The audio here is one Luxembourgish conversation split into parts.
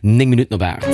9 Minutten op 8.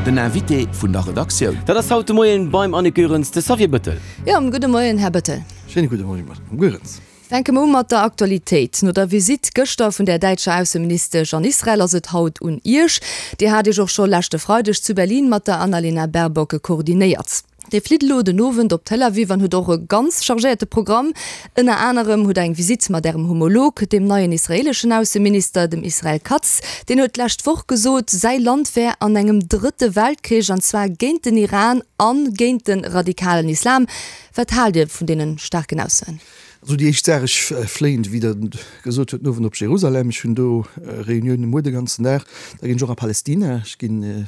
Den Invité vun der Redaktioun. Dat ass haut de Moien beim Annick Goerens de Xavier Bëttel. Jo, gudde Moien, Här Bëttel. Schéine gudde Moien, Madame Goerens. Fänke mer u mat der Aktualitéit. No der Visitt gëschter vun der däitscher Ausseministesch an Israel ass et haut un Iech. Dir hat Iech och scho leschte Freideg zu Berlin mat der Annalena Baerbock koordinéiert. Dir flitt elo den Owend op Tel Aviv an hutt och e ganz chargéierte Programm. Ënner anerem hutt der eng Visitt mat Ärem Homolog, dem neien israeeleschen Ausseminister, dem Israel Katz. Deen huet d'lescht Woch gesot, säi Land wär an engem drëtte Weltkrich, an zwar géint den Iran a géint de radikalen Islam. Wat haalt Dir vun deene staarken Aussoen? Also déi éischt Saach, ech fléien, wéi Der gesot hutt, den Owend op Jerusalem. Ech hunn do Reuniounen muer de ganzen Dag. Da ginn ech och a Palestina. Ech ginn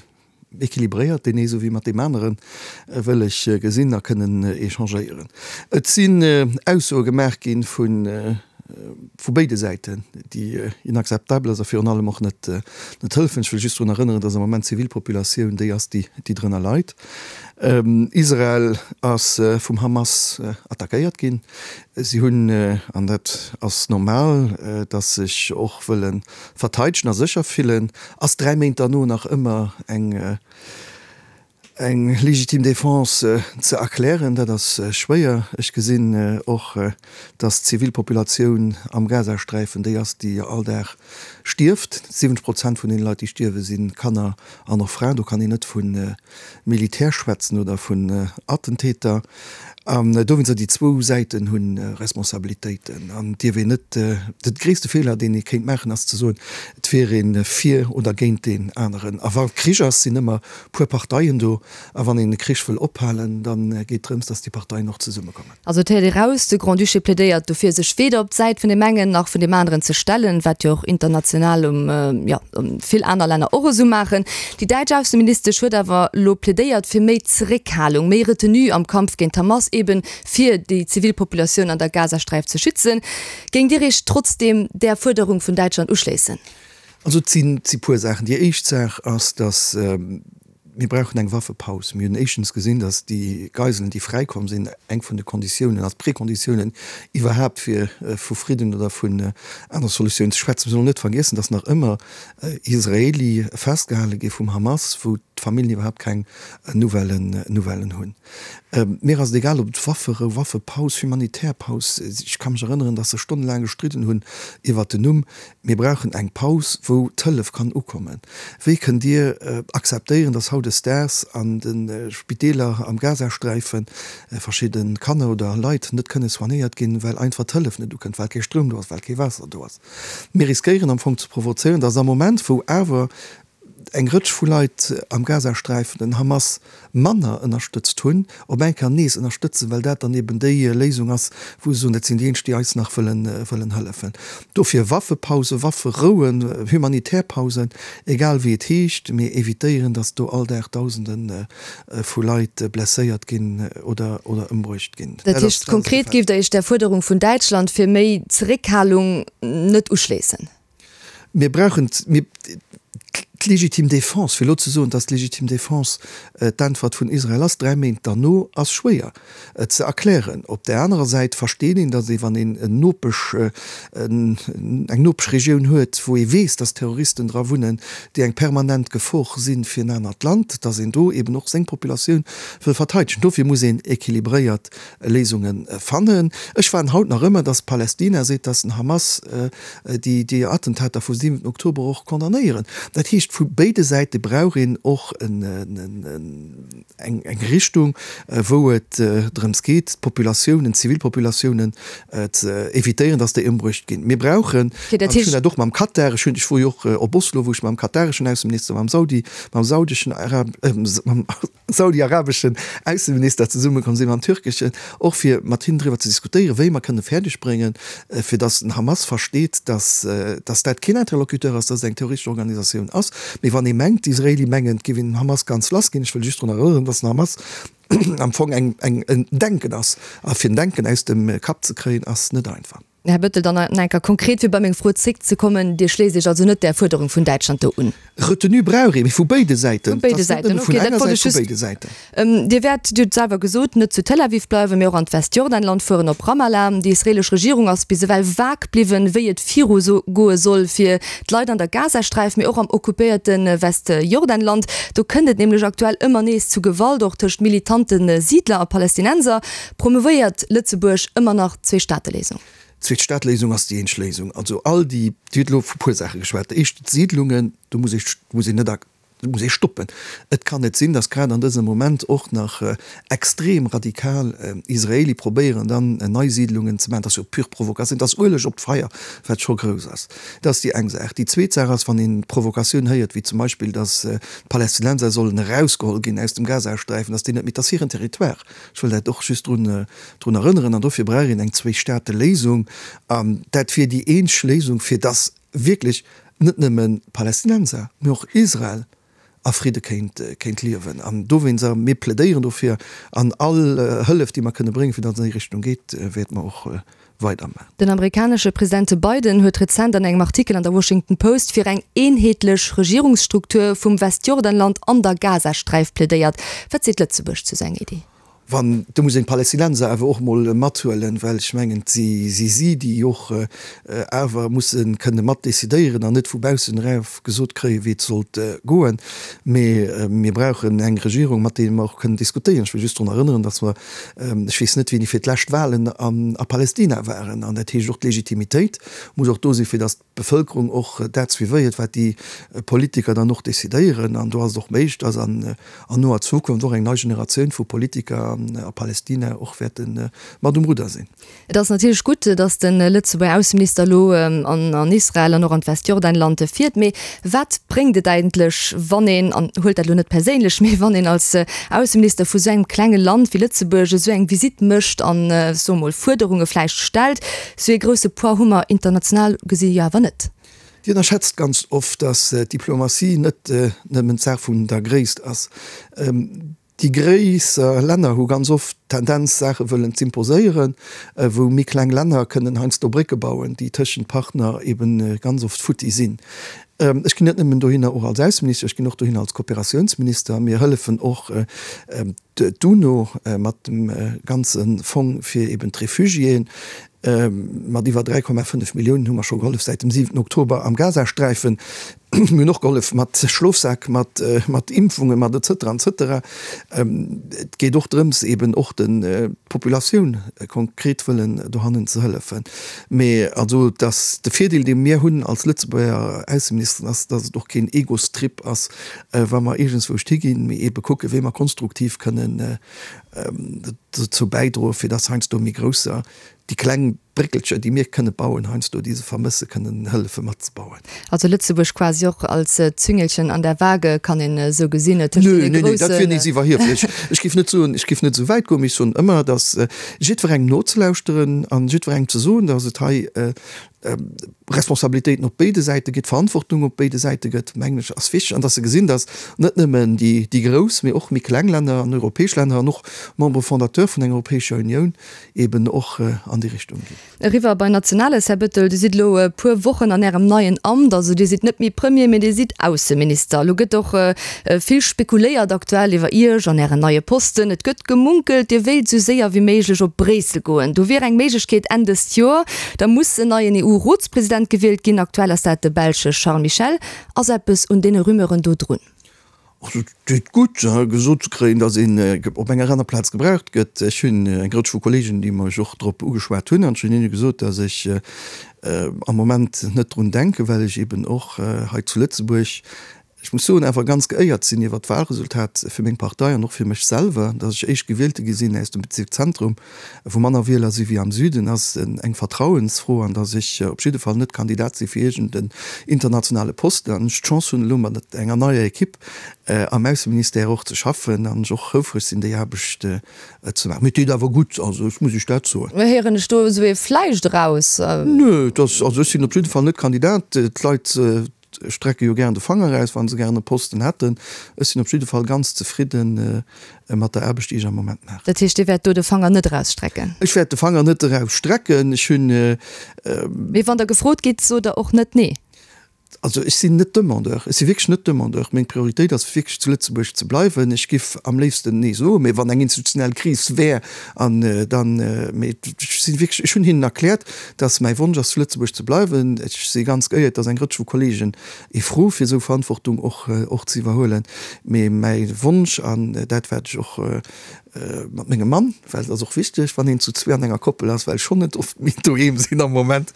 Equilibréiert, deen ee souwéi mat deem aneren, wëll ech gesinn a kënnen échangéieren. Et sinn Aussoe gemaach gi vu béide Säiten, déi inakzeptabel ass a virun allem och net hëllefen. Ech wëll just drun erënneren, dass am Moment d'Zivilpopulatioun déi ass, déi drënner leit. Israel ass vum Hamas attackéiert ginn. Si hunn, an dat ass normal, dass sech och wëlle verteidegen a sécher fillen, ass 3 Méint derno nach ëmmer eng eng légitime défense ze erklären, dat ass schwéier. Ech gesinn och, dass d'Zivilpopulatioun am Gazasträifen déi ass, déi all Dag stierft. 70 Prozent vun deene Leit, déi stierwen, si Kanner an och Fraen. Do kann een net vu Militär schwätzen oder vun Attentäter. An dowéinster, déi zwou Säiten hu Responsabilitéiten. An et dierf een net, de gréisste Feeler, deen ee kéint maachen, ass ze soen, et wier ee fir oder géint deen aneren. A wa Krich ass, sinn ëmmer puer Parteien do. A wann een e Krich wëll ophalen, da geet drëms, datt déi Parteien och zesummekommen. Also et héiert ee raus, de Grand-Duché plädéiert dofir, sech weder op d'Säit vun deem engen nach vun deem aneren ze stellen, wat jo och international um, jo, vill aner Länner och esou maachen. Déi däitsch Ausseministesch huet awer elo plädéiert fir méi Zeréckhalung, méi Retenue am Kampf géint d'Hamas, eben fir déi zivil Populatioun an der Gazasträif ze schützen. Géingt Dir Iech trotzdeem där Fuerderung vun Däitschland uschléissen? Also et sinn puer Saachen. Déi éischt Saach ass, datt Mir brauchen eng Waffepaus. Mir hunn éischtens gesinn, datt déi Geiselen, déi fräikomm sinn, eng vun de Konditiounen als Prekonditiounen iwwerhaapt fir vu Fridden oder vun aner Solutiounen ze schwätzen. Mir sollen net vergiessen, datt nach ëmmer Israeli festgehale gi vum Hamas, wou d'Familljen iwwerhaapt keng Nouvellen Nouvellen hunn. Mir ass et egal, ob et Wafferou, Waffepaus, humanitär Paus, ech ka mech erënneren, datt se stonnelaang gestridden hunn iwwert den Numm. Mir brauchen eng Paus, wou d'Hëllef kann ukommen. Wéi kënnt Dir akzeptéieren, datt hautdesdaags an de Spideeler am Gazasträife verschidde Kanner oder Leit net kënne soignéiert ginn, well einfach d'Hëllef net ukënnt, well kee Stroum do ass, well kee Waasser do ass? Mir riskéieren am Fong ze provozéieren, datt am Moment, wou awer eng Rëtsch vu Leit am Gazasträifen den Hamas manner ënnerstëtzt hunn, op eng Kéier nees ënnerstëtzen, well dat dann eben déi Léisung ass, wou se soen, dat sinn déi eenzeg, déi eis nach wëllen wëllen hëllefen. Dofir Waffepausen, Wafferouen, humanitär Pausen, egal wéi et heescht, mee evitéieren, datt do all Dag Dausende vu Leit blesséiert ginn oder oder ëmbruecht ginn. Dat heescht konkret, géift Der Iech där Fuerderung vun Däitschland fir méi Zeréckhalung net uschléissen? Mir brauchen d'legitime Défense. Fir elo ze soen, datt d'legitime Défense d'Äntwert vun Israel ass, dräi Méint derno, ass schwéier ze erklären. Op där anerer Säit versteet een, datt ee wann een en Nopesch, eng Nopeschregioun huet, wou ee weess, datt Terroristen dra wunnen, déi eng permanent Gefor si fir en anert Land, datt een do eben och seng Populatioun wëll verteidegen. Dofir muss een équilibréiert Léisunge fannen. Ech waarden haut nach ëmmer, datt Palästina seet, datt den Hamas déi Attentater vum 7 Oktober och condamnéieren. Dat heescht, vu béide Säite brauch een och eng Richtung, wou et drëms geet, d'Populatiounen, d'Zivilpopulatiounen ze evitéieren, datt déi ëmbruecht ginn. Mir brauchen, an ech hunn dat och mam Katar, ech hunn, ech wor jo och op Oslo, wou ech mam katareschen Ausseminister, mam Saudi, mam saudeschen Arab, mam saudi-arabeschen Ausseminister zesummekomm sinn, mam türkeschen, och fir mat hinnen driwwer ze diskutéieren, wéi mer kënne fäerdeg bréngen, fir datt den Hamas versteet, datt datt dat keen Interlocuteur ass, datt et eng terroristesch Organisatioun ass. Mee wann ee mengt, d'Israeli mengen, et géif een den Hamas ganz lass ginn, ech wëll just drun erënneren, datt den Hamas am Fong eng eng en Denken ass, a fir en Denken aus dem Kapp ze kréien, ass net einfach. Här Bettel, dann nach eng Kéier konkret, fir bei meng Fro zréckzekommen, Dir schléisst Iech also net där Fuerderung vun Däitschland do un? Retenue brauch ee, mee vu béide Säiten. Vu béide Säiten, okay, dat wollt ech just. Vu béide Säiten. Dir wäert, Dir hutt et selwer gesot, net zu Tel Aviv bleiwen, mee och an d'Westjordanland fueren, op Ramallah. Déi israeelesch Regierung ass bis ewell vag bliwwen, wéi et viru goe soll fir d'Leit an der Gazasträif, mee och am occupéierte Westjordanland. Do kënnt et nämlech aktuell ëmmer nees zu Gewalt, och tëscht militante Siidler a Palästinenser. Promouvéiert Lëtzebuerg ëmmer nach d'Zweestaateléisung? D'Zweestaateléisung ass déi eenzeg Léisung. Also all déi, Dir hutt elo vu puer Saache geschwat. Éischt d'Siidlungen, do muss ee, muss een net Dat muss ee stoppen. Et kann net sinn, datt grad an dësem Moment och nach extrem radikal Israeli probéieren, dann nei Siidlungen ze maachen. Dat ass jo pure Provokatioun. Dat ass Ueleg op d'Feier, wat scho grouss ass. Dat ass déi eng Saach. Déi zweet Saach ass, wann een d'Provokatioun héiert, wéi zum Beispill, datt d'Palästinenser sollen erausgeholl ginn aus dem Gazasträifen, datt déi net méi, dat ass hiren Territoire. Ech wëll dat och just drun drun erënneren. An dofir brauch een eng Zwee-Staate-Léisung. An dat wier déi eenzeg Léisung, fir datt wierklech net nëmme Palästinenser, mee och Israel a Fridde kéint kéint liewen. An dowéinst, a mir plädéieren dofir, an all Hëllef, déi mer kënne bréngen, fir datt et an déi Richtung geet, wäerte mer och weidermachen. Den amerikanesche Presidente Biden huet rezent an engem Artikel an der Washington Post fir eng eenheetlech Regierungsstruktur vum Westjordanland an der Gazasträif plädéiert. Wat seet Lëtzebuerg zu sou enger Iddi? Wann, do muss een d'Palästinenser awer och emol mathuelen, well ech mengen, et si si, déi och awer musse kënne mat decidéieren an net vu baussen erauf gesot kréien, wéi et sollt goen. Mee mir brauchen eng Regierung, mat deene mer och kënnen diskutéieren. Ech wëll just drun erënneren, datt mer, ech weess net wéini fir d'lescht Wahlen a Palästina waren. An dat heescht och, d'Legitimitéit muss och do sinn, fir datt d'Bevëlkerung och dat suivéiert, wat déi Politiker dann och decidéieren. An do ass et och méiglech, dass an noer Zukunft och eng nei Generatioun vu Politiker a Palästina och wäerte mat um Rudder sinn. Et ass natierlech gutt, dass de Lëtzebuerger Ausseminister elo an Israel an och an d'Westjordanland fiert. Mee wat bréngt et eigentlech, wann een, an huelt dat elo net perséinlech, mee wann een als Ausseminister vu sou engem klenge Land wéi Lëtzebuerg esou eng Visitt mécht an, soe mol, Fuerderunge vläicht stellt, Sou ee grousse Poids hu mer international gesi jo awer net. Dir ënnerschätzt ganz oft, datt d'Diplomatie net nëmmen d'Saach vun der Gréisst ass. Déi gréisser Länner hu ganz oft d'Tendenz, Saache wëllen z'imposéieren, wou méi kleng Länner kënnen heiansdo Brécke bauen, déi tëschent Partner eben ganz oft futti sinn. Ech ginn net nëmmen dohinner och als Ausseminister, ech ginn och dohinner als Kooperatiounsminister. Mir hëllefen och D'UNO mat dem ganze Fong fir eben d'Refugiéen, mat iwwer 3,5 Milliounen hu mer scho gehollef säit dem 7 Oktober am Gazasträifen. Mir hunn och gehollef mat Schlofsäck, mat mat Impfungen, mat et cetera et cetera. Et geet och drëms eben och de Populatioun konkret wëllen dohannen ze hëllefen. Mee also dass de Virdeel dee mir hunn als Lëtzebuerger Ausseministeren ass, dass et och keen Egostrip ass, wa mer iergendswouscht higinn, mee eebe kucken, wéi mer konstruktiv kënnen dozou bäidroen, fir dass heiansdo méi grousser, déi kleng Bréckelcher, déi mir kënne bauen, heiansdo, déi se vermëssen, kënnen hëllefe matzebauen. Also Lëtzebuerg quasi och als Züngelchen an der Waage, kann een esou gesinn, tëscht deene groussen. Nee, nee, dat wier nees iwwerhieflech. Ech géif net soen, ech géif net esou wäit goen, mee ech soen ëmmer, dass jiddwerengem nozelauschteren an jiddwerengem ze soen, dass et hei Responsabilitéiten op béide Säite gëtt, Verantwortung op béide Säite gëtt, mengen ech, ass wichteg. An dass se gesinn, dass net nëmmen déi grouss, mee och méi kleng Länner an europäesch Länner an och Membres fondateurs vun enger Europäescher Unioun eben och an déi Richtung ginn. Eriwwer bei Nationales, Här Bettel, Dir sidd elo e puer Wochen an Ärem neien Amt. Also Dir sidd net méi Premier, mee Dir sidd Ausseminister. Elo gëtt och vill spekuléiert aktuell iwwer Iech an Ären neie Posten. Et gëtt gemunkelt, Dir wéilt esou séier wéi méiglech op Bréissel goen. Do wier eng Méiglechkeet Enn dëst Joer. Da muss en neien EU-Rotspresident gewielt ginn. Aktuell ass dat de Belsche Charles Michel. Ass eppes un deene Rumeuren do drun? Also et deet gutt, gesot ze kréien, datt een op enger aner Plaz gebraucht gëtt. Ech hunn eng Rëtsch vu Kolleegen, déi mech och drop ugeschwat hunn, an ech hunn hinne gesot, datt ech am Moment net drun denken, well ech eben och hei zu Lëtzebuerg Ech muss soen, awer ganz geéiert sinn iwwert d'Wahlresultat fir meng Partei an och fir mech selwer. Datt ech Éischtgewielte gi sinn aus dem Bezierk Zentrum, wou manner Wieler si wéi am Süden, ass eng Vertrauensfro an datt ech op jidde Fall net Kandidat si fir iergend en internationale Posten an ech d'Chance hunn elo mat enger neier Equipe am Ausseministère och ze schaffen an ech och houfreg sinn déi Aarbecht ze maachen. Mee et deet awer gutt, also ech muss Iech dat soen. Héieren ech do esou ee Vläicht eraus? Nö, et ass, also ech sinn op jidde Fall net Kandidat. D'Leit. Leit strecke jo gären de Fanger eraus, wa se gären e Posten hätten. Ech sinn op jidde Fall ganz zefridden mat der Aarbecht, déi ech am Moment maachen. Dat heescht, Dir wäert do de Fanger net erausstrecken? Ech wäert de Fanger net erausstrecken. Ech hunn. Mee wann Der gefrot gitt, sot Der och net Nee? Also ech sinn net Demandeur, ech si wierklech net Demandeur. Meng Prioritéit ass wierklech zu Lëtzebuerg ze bleiwen. Ech giff am léifsten Nee soen, mee wann eng institutionell Kris wär an dann, mee ech si wierklech, ech hunn hinnen erkläert, datt mäi Wonsch ass zu Lëtzebuerg ze bleiwen. Ech si ganz geéiert, datt eng Rëtsch vu Kollegen ee fro fir esou Verantwortung och och ze iwwerhuelen. Mee mäi Wonsch an dat wat ech och Mat mengem Mann, well et ass och wichteg, wann een zu zwee an enger Koppel ass, well ech schonn net oft méi doheem sinn am Moment,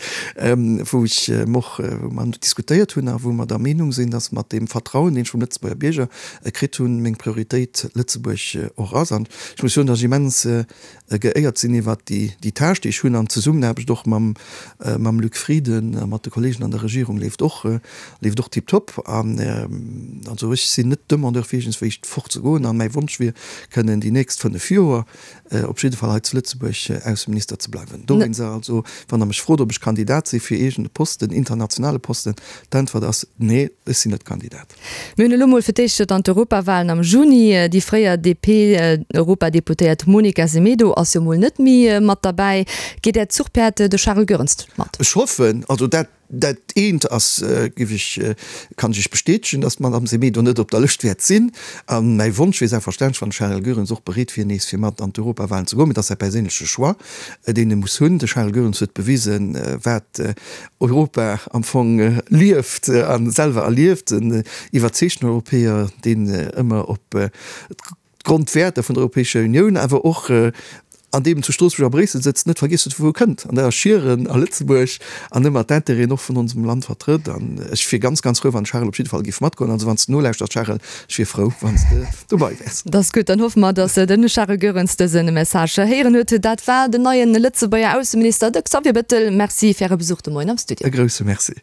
wou ech och, wou mer diskutéiert hunn a wou mer der Meenung sinn, datt mat deem Vertrauen, deen ech vum Lëtzebuerger Bierger kritt hunn, meng Prioritéit Lëtzebuerg och ass. An ech muss soen, datt ech immens geéiert sinn iwwert déi Tâche, déi ech hunn an d'Zesummenaarbecht och mam mam Luc Frieden a mat de Kollegen an der Regierung leeft och, leeft och tiptop. An also ech sinn net Demandeur fir iergendswéi fort ze goen an mäi Wonsch wier, kënnen déi nächst 5 Joer op jidde Fall hei zu Lëtzebuerg Ausseminister ze bleiwen. Dowéinst also, wann Der mech frot, ob ech Kandidat si fir iergend e Posten, internationale Posten, d'Äntwert ass, Nee, ech sinn net Kandidat. Mir hunn elo mol fir d'éischt dann d'Europawahlen am Juni. Déi fréier DP-Europadeputéiert Monica Semedo ass jo mol net méi mat derbäi. Geet Äert Zuchpäerd, de Charel Goerens, mat? Ech hoffen, also dat dat eent ass, géif ech, kann ech Iech bestätegen, datt d'Madame Semedo net op der Lëscht wäert sinn. A mäi Wonsch wier selbstverständlech, wann de Charel Goerens och bereet wier, nees fir mat an d'Europawahlen ze goen, mee dat ass säi perséinleche Choix, deen e muss hunn. De Charel Goerens huet bewisen, wat Europa am Fong lieft a selwer erlieft, en iwwerzeegten Europäer, deen ëmmer op d'Grondwäerter vun der Europäescher Unioun, awer och an deem zu Stroossbuerg a Bréissel sëtzt, net vergiesst huet, vu wou e kënnt, an dat ass Schieren a Lëtzebuerg, an ëmmer d'Intérêten och vun onsem Land vertrëtt. An ech wier ganz, ganz frou, wann de Charel op jidde Fall géif matgoen. Also wann s de nolauschters, Charel, ech wier frou, wann s de dobei wäers. Dat ass gutt. Dann hoffe mer, datt de Charel Goerens dëse Message héieren huet. Dat war den neie Lëtzebuerger Ausseminister, de Xavier Bettel. Merci fir Äre Besuch de Moien am Studio. E grousse Merci.